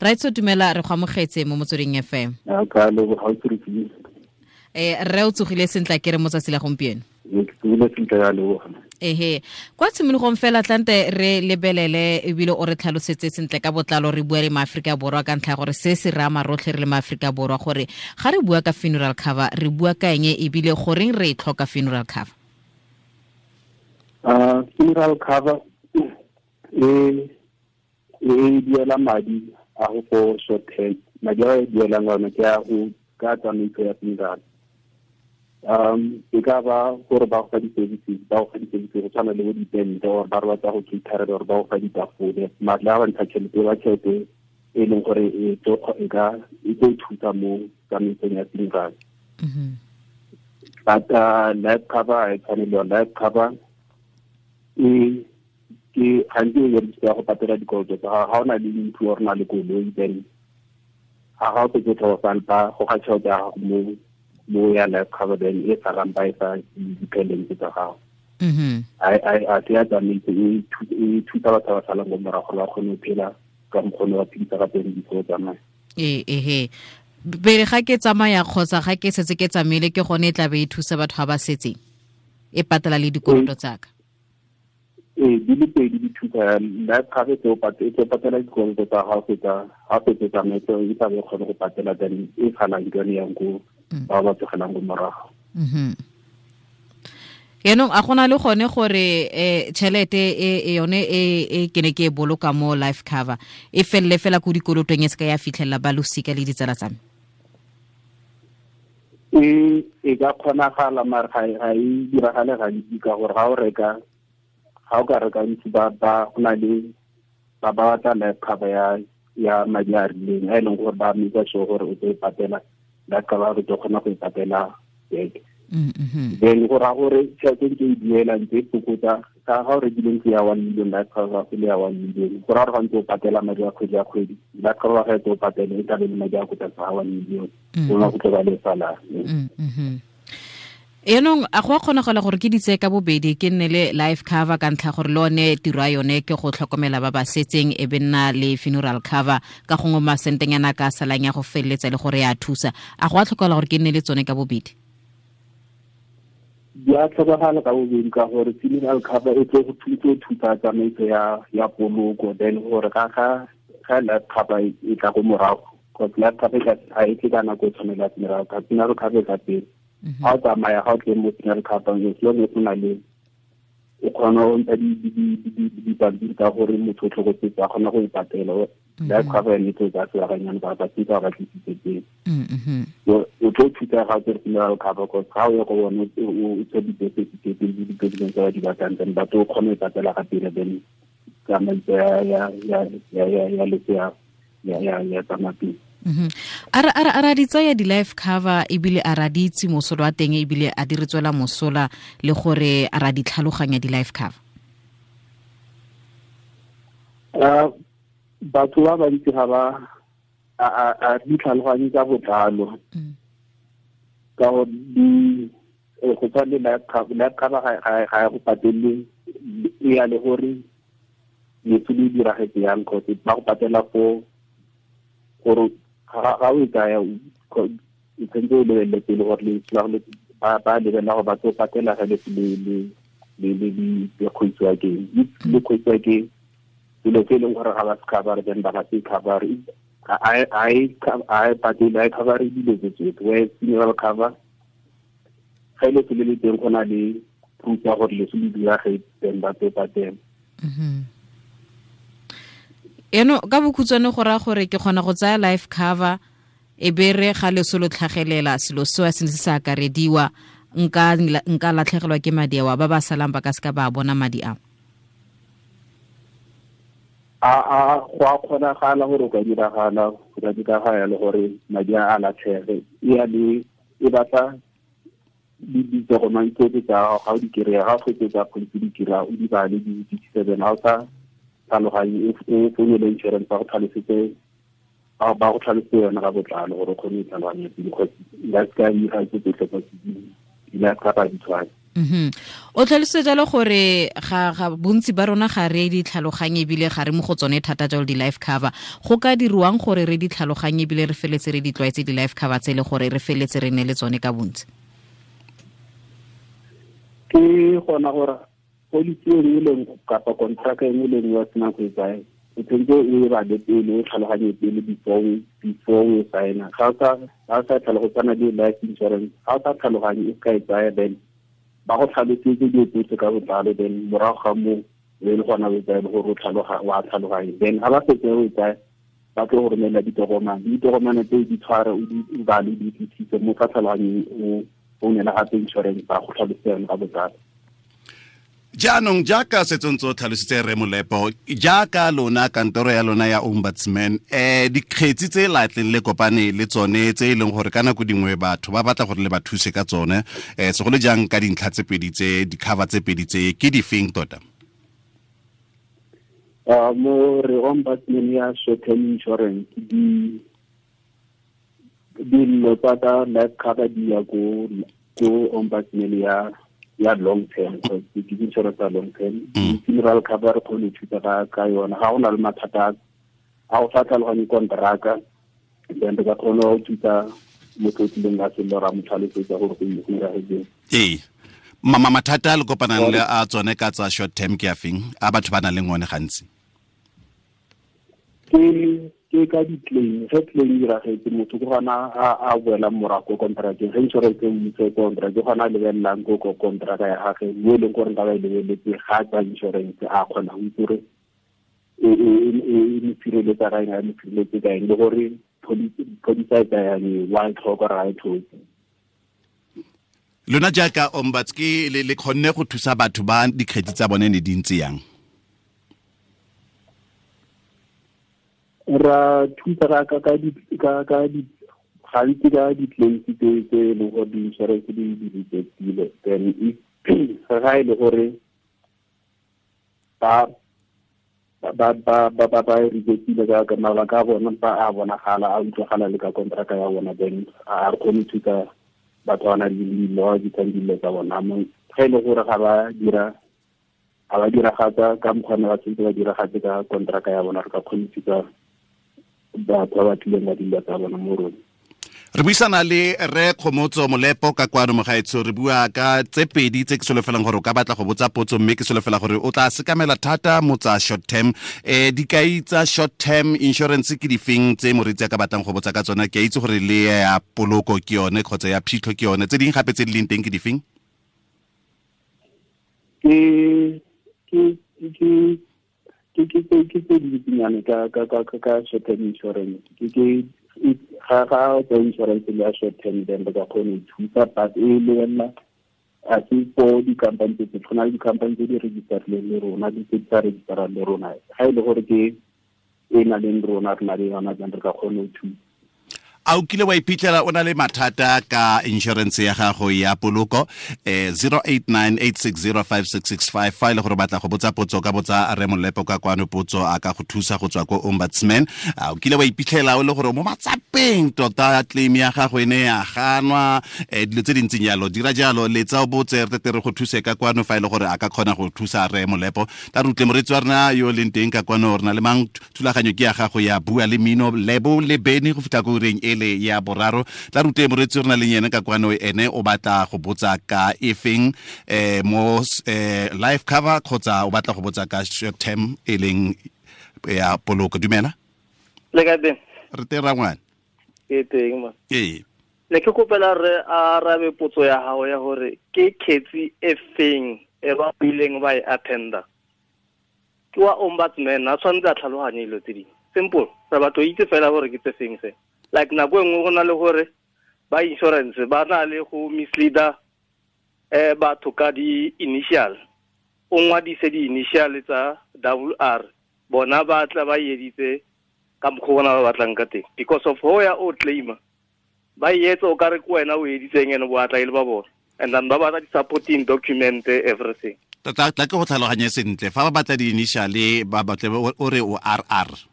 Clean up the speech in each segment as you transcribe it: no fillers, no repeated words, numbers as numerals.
Raitso, dumela, re go amogetse mo Motsweding FM. Rre, o tsogile sentle ke re mo tsatsi la gompieno? Ehe, kwa tshimologong fela tlante re lebelele ebile o re tlhalosetse sentle ka botlalo, re bua le maAforika Borwa ka ntlha ya gore se se re ama rotlhe re le maAforika Borwa, gore ga re bua ka funeral cover re bua ka eng, ebile goreng re e tlhoka funeral cover? Funeral cover e duela madi a go for short term. Madi a e duelang one ke a go ka tsamaiso ya funeral. E ka ba gore ba go fa di-services, ba go fa di-services go tshwana le bo ditente, or ba re batla go caterela, or ba go fa ditafole. Matla a ba ntsha tšhelete, ba tšhelete e leng gore e tlo e ka e tlo thusa mo tsamaisong ya funeral. But life cover e tshwane le yone. Life cover e ke gantsi e berekisiwa go patela dikoloto tsa gago. Ga o na le ntlo or na le koloi, then ga o setse tlhokofala, ba goga tšhelete ya gago mo ya life cover, then e salang ba e fa di-dependents tsa gago. A se ya tsamaiso, e thusa batho ba salang ko morago gore ba kgone go phela ka mokgone wa phedisa ka teng before tsamaya. Ee, ehe, pele ga ke tsamaya kgotsa ga ke setse ke tsamaile, ke gone e tla be e thusa batho ba ba setseng, e patela le dikoloto tsaka. Ee, di le pedi di thusa. Life cover e tlo patela dikoloto tsa gago fetsa ga fetse tsamaiso, e tla be kgone go patela, then e salang ke yone yang ko ba ba tlogelang ko morago. Yaanong a gona le gone gore tšhelete e yone e ke ne ke e boloka mo life cover e felele fela ko dikolotong, e se ka ya fitlhelela ba losika le ditsala tsa me? E ka kgonagala, mare ga e diragale gantsi, ka gore ga o reka, ga o ka reka ntsi, ba go na le ba batla life cover ya madi a rileng, a e leng gore ba make sure gore o tlo e patela life cover, re tlo kgona go e patela back. Then go raya gore tšhelete ntse e duela, ntse e fokotsa. Ka ga o rekile ntlo ya 1 million, life cover go le ya 1 million, go raya gore ga ntse o patela madi a kgwedi ya kgwedi, life cover ga e tse o patele e tlabe le madi a ko tlase ga 1 million, gona go tlo ba le salang. Yaanong a go a kgonagala gore ke di tseye ka bobedi, ke nne le life cover ka ntlha gore le one tiro ya yone ke go tlhokomela ba ba setseng, e be nna le funeral cover, ka gongwe masentenyana ka salang ya go feleletsa le gore ya thusa? A go a tlhokagala gore ke nne le tsone ka bobedi? Di a tlhokagala ka bobedi, ka gore funeral cover e tlo go thusa tsamaiso ya poloko, then gore ga life cover e tla ko morago, because life cover ga e tle ka nako e tshwanela funeral cover. Funeral cover e tla pele. Ga o tsamaya, ga o tle mo funeral cover, as long as o na le, o kgona go ntsha dipampiri tsa gore motho o tlhokofetse, a kgona go e patela, life cover yone e tlo tsaya sebakanyana ba batisa ba tlisitse teng. O tlo thusa ga o tsere funeral cover, cause ga o ye go bone o tse di-birth certificate le di-document tse ba di batlang, then batho o kgone go e patela ga pele, then tsamaiso ya leso ya tsamaya pele. A ra di tsaya di-life cover, ebile a ra di itse mosola wa teng, ebile a di re tswela mosola, le gore a ra di tlhaloganya di-life cover? Batho ba bantsi ga ba a di tlhaloganye ka botlalo, ka gore di go tshwana le life cover. Life cover ga e go patelele, e ya le gore lefu le diragetse yang, cause ba go patela fo gore ga o e tsaya, o tshwanetse o lebelele pele gore lefu la ba lebelela gore ba tlo patela ga lefu le kgwetsiwa ke le kgwetsiwa ke selo se e leng gore ga ba se cover, then ba ga se cover. Ga e patele, ga e cover dilo tse tsotlhe, whereas funeral cover, ga ile se le teng, go na le proof ya gore leso le diragetse, then ba tlo patela. Eno ka bokhutshwane go raya gore ke kgona go tsaya life cover, e be re ga leso lo tlhagelela, selo seo se ne se sa akarediwa, nka latlhegelwa ke madi ao, ba ba salang ba ka seka ba bona madi ao? A go a kgonagala gore o ka diragala, go ka diragala le gore madi a latlhege. E ya le e batla ditokomane tsotlhe tsa gago. Ga o di kry-a, ga o fetse tsa policy di kry-a, o di bale, di utlwisise. Then ga o sa tlhaloganye, o founele insurance, ba go tlhalosetse, ba go tlhalosetse yone ka botlalo gore o kgone go tlhaloganya pele, because la se ka dira tse tsotlhe tsa di-life cover di tshwane. O tlhalositse jalo gore ga bontsi ba rona ga re di tlhaloganye ebile ga re mo go tsone thata jalo di-life cover. Go ka dirwang gore re di tlhaloganye ebile re feletse re di tlwaetse di-life cover tse le gore re feletse re ne le tsone ka bontsi? Ke gona gore policy e nngwe le nngwe kapa contract e nngwe le nngwe ya sena go e tsaya, o tshwanetse o e bale pele, o tlhaloganye pele before o e signa. Ga o sa tlhaloganye le life insurance, ga o sa tlhaloganye o ka e tsaya, then ba go tlhalosetse dilo tsotlhe ka botlalo, then morago ga moo e le gona o e tsaya le gore wa tlhaloganye. Then ga ba setse o e tsaya, ba tlo go romela ditokomane, ditokomane tseo di tshware, o di bale, di utlwisise mo sa tlhaloganyeng, o founela gape insurance ba go tlhalosetse yone ka botlalo. Jaanong jaaka setsong tse o tlhalositse Rre Molepo, jaaka lona kantoro ya lona ya ombudsman, dikgetsi tse latleng le kopane le tsone tse e leng gore ka nako dingwe batho ba batla gore le ba thuse ka tsone, segolo jang ka dintlha tse pedi tse, di-cover tse pedi tse, ke difeng tota? Mo re ombudsman ya short term insurance, dillo tsa ka life cover di ya ko ombudsman ya long term, because ke insurance ya long term. Funeral cover re kgone ho thusa ka yona. Ga go na le mathata a go sa tlhaloganye kontraka, then re ka kgona go thusa motho o tlileng ka sello ra mo tlhalosetsa gore go iragetseng. Ee, mathata a le kopanang le a tsone ka tsa short term ke a feng a batho ba nang le one gantsi? Ke ka di-claim. Ge claim e diragetse, motho ke gona a boelang morago ko contracteng. Ge insurance e mmitse ko contract, ke gona a lebelelang ko contract ya gagwe, mo e leng gore nka ba e lebeletse ga tsa insurance, a kgona go itse gore e mo sireletsa ka eng, a mo sireletse ka eng, le gore policy e tsayang e, wa e tlhoka gore ga e tlhoke. Lona jaaka ombuds ke le kgonne go thusa batho ba dikgetsi tsa bone ne di ntse yang? Ra thusa gantsi ka di-claims tse e leng gore di-insurance di rejectile. Then if ga e le gore ba rejectile ka mabaka a bona, ba a bonagala, a utlwagala le ka contract ya bona, then a re kgone go thusa batho ba nang le dillo, di tsang dillo tsa bona. Ga e le gore ga ba dira, ga ba diragatsa ka mokgwa ne ba tshwanetse ba diragatse ka contract ya bona, re ka kgone go thusa batho ba ba tlileng ba dilo tsa bona mo rona. Re buisana le Rre Kgomotso Molepo ka kwano mogaetsho, re bua ka tse pedi tse ke solofelang gore o ka batla go botsa potso, mme ke solofela gore o tla sekamela thata mo tsa short term. Dikai tsa short term insurance ke difeng tse moreetsi a ka batlang go botsa ka tsona? Ke a itse gore le ya poloko ke yone kgotsa ya phitlho ke yone, tse dingwe gape tse di leng teng ke difeng? Ke tse di dintsinyane ka short term insurance. Ke ga tsa insurance le ya short term, then re ka kgona ho thusa, but e lebelela a se for di-company tse tshwana le di-company tse di registerileng le rona, di tse di sa registerang le rona. Ga e le gore ke e na leng rona, re na le yona, then re ka kgona ho thusa. A o kile wa iphitlhela o na le mathata ka insurance ya gago ya poloko? 0898605665, fa e le gore batla go botsa potso, ka botsa Rre Molepo ka kwano potso, a ka go thusa go tswa ko ombudsman. A o kile wa iphitlhela o le gore mo matsapeng tota claim ya gago e ne ya ganwa, dilo tse dintseng jalo, dira jalo, letsa o botse, re tle re go thuse ka kwano fa e le gore a ka kgona go thusa Rre Molepo. Tla re utlwe moreetsi wa rena yo leng teng ka kwano, re na le mang? Thulaganyo ke ya gago ya Bua le Mmino, Lebo le Beny go fitlha ko ureng ele ya boraro. Tla rute moreetsi re na le yene ka kwano, ene o batla go botsa ka efeng, mo life cover kgotsa o batla go botsa ka short term e leng ya poloko. Dumela. Le ka teng? Re teng rangwane. Ke teng ma. Ee. Ne ke kopela re arabe potso ya gago ya gore ke kgetsi e feng e ba ileng ba e attenda. Ke wa ombudsman, a tshwanetse a tlhaloganye dilo tse dingwe. Simple, re batlo itse fela gore ke tse feng se. Like nako e nngwe go na le gore ba insurance ba na le go misleader batho ka di-initial. O ngwadise di-initial tsa WR, bona ba tla ba editse ka mokgwa bona ba batlang ka teng. Because of ho ya o claima, ba etsa o kare ke wena o editseng ene bo atla e le ba bona. And then ba batla di-supporting document, everything. Tla ke go tlhaloganye sentle, fa ba batla di-initial ba batle o re o RR.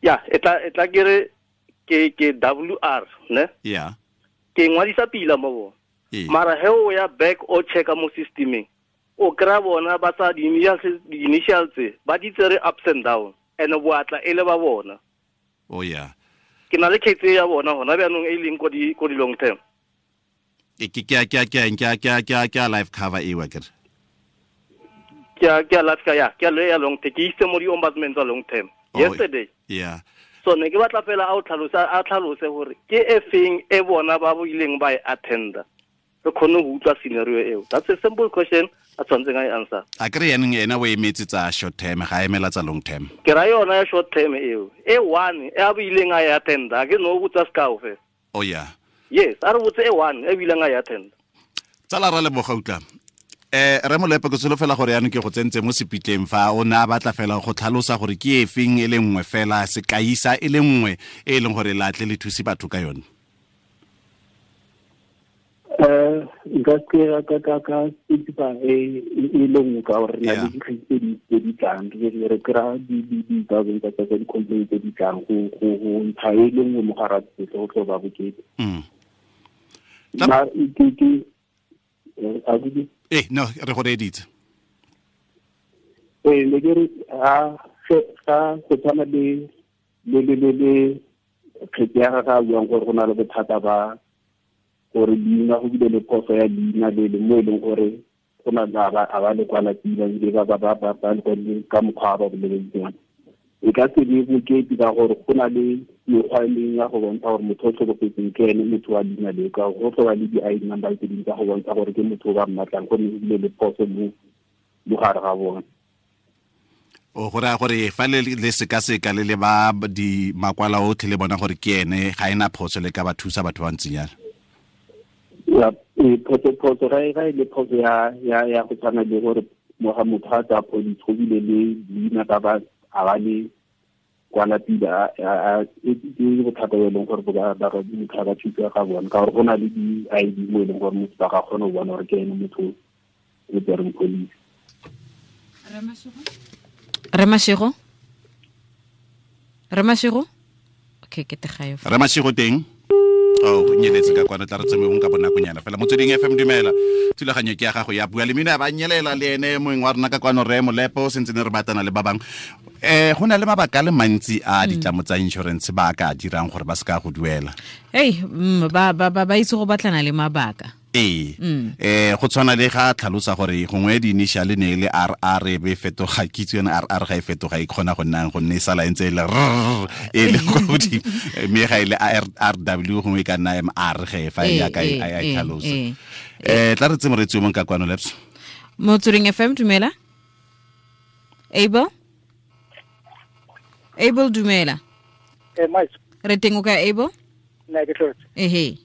Ya, e tla ke re ke WR, ne? Yeah. Ke ngwadisa pila mo bona. Mara he o ya back o checka mo systemeng, o kry-a bona ba sa di-initials tse ba di tsere ups and down, and boatla e le ba bona. Oh yeah. Ke na le case ya bona hona bjanong e leng ko di long term. Ke ke life cover e wa kere. Ke a life cover ya, ke ya long term. Ke itse mo di ombudsman tsa long term. Yesterday. Yeah. So ne ke batla fela a tlhalose gore ke e feng e bona ba bo ileng ba e attenda. Re khone go utlwa scenario eo. That's a simple question a tshwantseng a e answer. A kry yanong ena o emetse tsa short term, ga emela tsa long term. Ke ra yona ya short term eo. E one e a bo ileng a e attenda, ke no botsa sekao fela. Oh yeah. Yes, a re botse e one e bileng a e attenda. Tsala ra leboga utlwa. Re Molepo ke solofela gore yanong ke go tsentse mo sepitleng fa o ne a batla fela go tlhalosa gore ke efeng e le nngwe fela sekaisa e le nngwe e leng gore latle le thuse batho ka yone. Nka ka ka ka specify e le nngwe ka gore na le dikgetse tse di tlang, re kry-a di-thousand tsa di-complaint tse di tlang go ntsha e le nngwe mo gare ga tsotlhe go tlo ba bokete. No, re go reeditse. Ne ke re ga go tshwana le kgetse ya gagwe a buang gore go na le bothata ba gore leina go bile le phoso ya leina le le mo e leng gore go na a ba le kwala pila ebile ba le kwadile ka mokgwa ba boleletseng. E ka se be bokete ka gore go na le mekgwa e mengwe ya go bontsha gore motho o tlhokofetseng ke ene motho wa leina leo, ka go tlo ba le di-I_D number tse dingwe tsa go bontsha gore ke motho o ba mmatlang, gonne go bile le phoso mo gare ga bone. O go raya gore fa le sekaseka le le ba di makwala otlhe le bona gore ke ene ga ena phoso le ka ba thusa batho ba ntseng jalo. Ya, phoso ga e le phoso ya go tshwana le gore moga motho a tsaya police go bile le leina ba ba a ba le kwala pila ke bothata bo e leng gore ba motho a ba thusa ga bona, ka gore go na le di-I_D mo e leng gore motho ba ga kgone go bona gore ke ene motho o tsereng police. Remashego? Okay, ke tegayo. Remashego teng? Oh, nyeletse ka kwana tla re tsemeng ka bonakonyana fela. Motsweding FM dumela. Thulaganyo ke ya gago ya bua le mina ba nyelela le ene moeng wa rona ka kwano Re Molepo sentse ne re batana le ba bangwe. Go na le mabaka a le mantsi a ditlamo tsa insurance ba ka dirang gore ba se ka go duela. Hey, ba itse go batlana le mabaka. Go tshwana le ga tlhalosa gore gongwe di-initial ne le RR e be fetoga, kitso yone RR ga e fetoga e kgona go nnang gonne e sala e ntse e le R e le kwa godimo, mme ga e le RW gongwe e ka nna MR ge fa e yaka e tlhalosa. Tla re tse moreetsi o mongwe ka kwano Labs. Motsweding FM dumela. Abel dumela. Re teng o kae Abel? Nna ke tlotse. Ehe.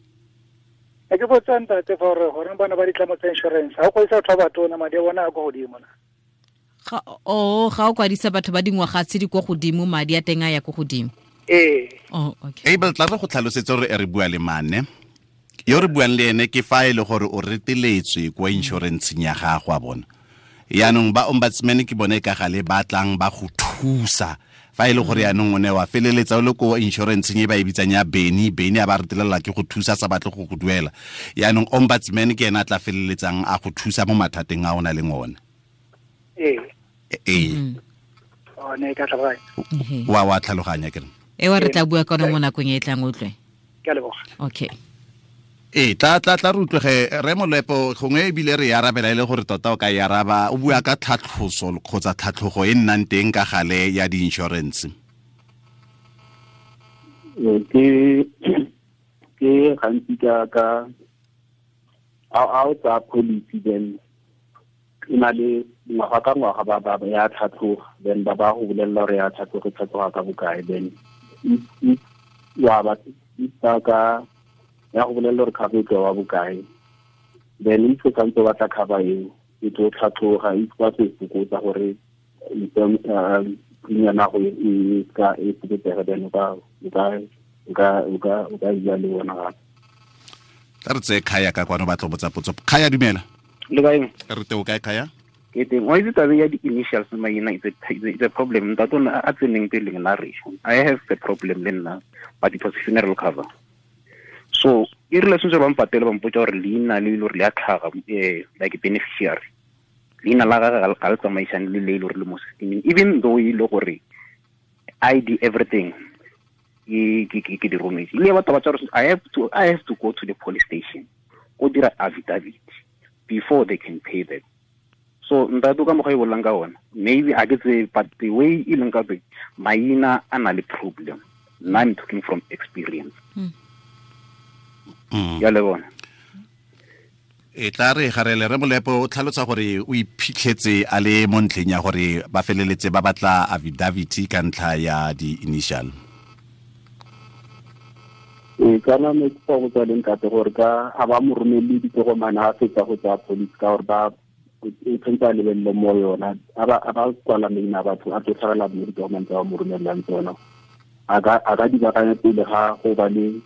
Ke botsa ntate fa gore goreng bana ba ditlamo tsa insurance ga o kwadisa batho ba batona madi a bona a kwa godimo na? Ga o kwadisa batho ba dingwaga tse di kwa godimo madi a teng a ya kwa godimo. Ee. Oh, okay. Abel, tla re go tlhalosetse gore re bua le mane. Yo re buang le ene ke fa e le gore o reteletswe kwa insurance-eng ya gago a bona. Yaanong ba ombudsman ke bone ka gale ba tlang ba go thusa. Fa e le gore yaanong o ne wa feleletsa o le ko insurance-eng e ba e bitsang ya Beni a ba retelela ke go thusa sa batle go go duela. Yaanong ombudsman ke ena a tla feleletsang a go thusa mo mathateng a o na leng one. Ee. Ee. O ne ka tlhaloganya. Wa tlhaloganya ke re. E wa re tla bua ka yone mo nakong e tlang utlwe. Ke a leboga. Okay. Tla re utlwege Re Molepo gongwe ebile re arabela e le gore tota o ka e araba o bua ka tlhatlhoso kgotsa tlhatlhogo e nnang teng ka gale ya di-insurance. Ke gantsi ka a o tsaya policy then e na le ngwaga ka ngwaga ba ya tlhatlhoga, then ba go bolelela gore ya tlhatlhoga tlhatlhoga ka bokae, then wa ba ka ya go bolelela gore cover e tlo wa bokae, then if o santse o batla cover eo e tlo tlhatlhoga, if ba se fokotsa gore premium ya go e ka e fokotsega, then o ka bua le bona gape. Tla re tseye Khaya ka kwano ba tlo botsa potso. Khaya dumela. Le kae? Re teng o kae Khaya? Ke teng. Wa itse taba ya di-initials maina it's a problem. Ntate o a tseneng pele nna re. I have the problem le nna, but it was funeral cover. So e rile sentse ba mpatele ba mpotsa gore leina le ile gore le a tlhaga like beneficiary leina la gagwe ga le tsamaisane le le ile gore le mo systeming, even though e le gore ID everything ke di rometse. Ile batho ba tsa gore I have to go to the police station go dira affidavit before they can pay them. So ntate ka mokgwa e bolelang ka ona, maybe a ke tsebe, but the way e leng ka teng, maina a na le problem. Nna I'm talking from experience. Ya le bona. E tla re garele re Molepo o tlhalosa gore o iphitlhetse a le mo ntlheng ya gore ba feleletse ba batla affidavit ka ntlha ya di-initial. Ee, kana ne ke go tswa le ntate gore ka a ba mo romelle ditokomane a fetsa go tsaya police, ka gore ba o tshwanetse a lebelele mo yona, a ba kwala maina a batho a tlo tlhagela mo ditokomane tsa ba mo romellang tsona. A ka di baakanya pele ga go ba le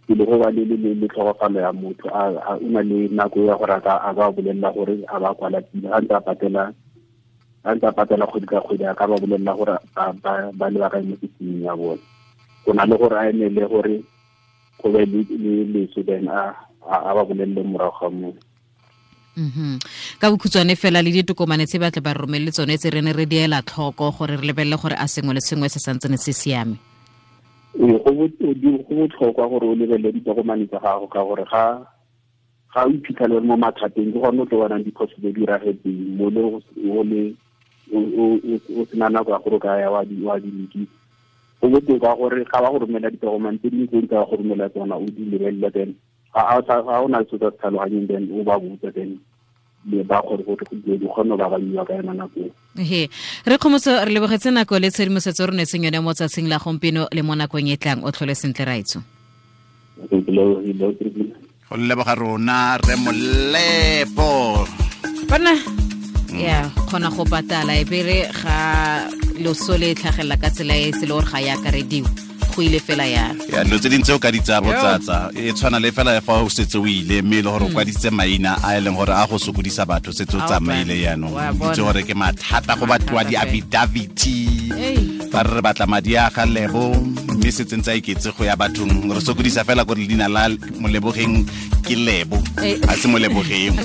le tlhokofalo ya motho, a o na le nako ya gore a ka bolelela gore a ba kwala pila, a ntse a patela kgwedi ka kgwedi, a ka ba bolelela gore ba lebakanye mo systeming ya bone. Go na le gore a emele gore go be le leso, then a ba bolelele morago ga moo. Ka bokhutshwane fela le ditokomane tse ba tle ba romelle tsone tse re ne re diela tlhoko gore re lebelele gore a sengwe le sengwe se santsene se siame. Ee, go botlhokwa gore o lebelele ditokomane tsa gago, ka gore ga o iphitlhele mo mathateng, ke gone o tlo bonang diphoso tse di diragetseng mo le o sena nako ya gore o ka ya wa di lokisa. Go botoka gore ga ba go romela ditokomane tse dingwe tse di ka go romela tsona, o di lebelele, then ga o na le se o sa se tlhaloganyeng, then o ba botsa, then ba gore gore di kgone go babanyiwa ka yona nako. He re Kgomotso, re lebogetse nako le tshedimosetso re neetseng yone mo tsatsing la gompieno le mo nakong e tlang. O tlhole sentle, raitso. Go leboga rona re Molepo. Bona ya kgona go patala e bere ga loso le tlhagelela ka tsela e se le gore ga ya akarediwa, go ile fela ya ya dilo tse dintsi o ka di tsaya botsatsa, e tshwana le fela fa o setse o ile, mme e le gore o kwadisitse maina a e leng gore a go sokodisa batho, setse o tsamaile jaanong, itse gore ke mathata go batliwa di-affidavit, ba re re batla madi a ga Lebo, mme setse ntse a iketse go ya bathong, re sokodisa fela gore leina la Molebogeng ke Lebo, a se Molebogeng,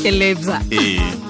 ke Lebza. Ee.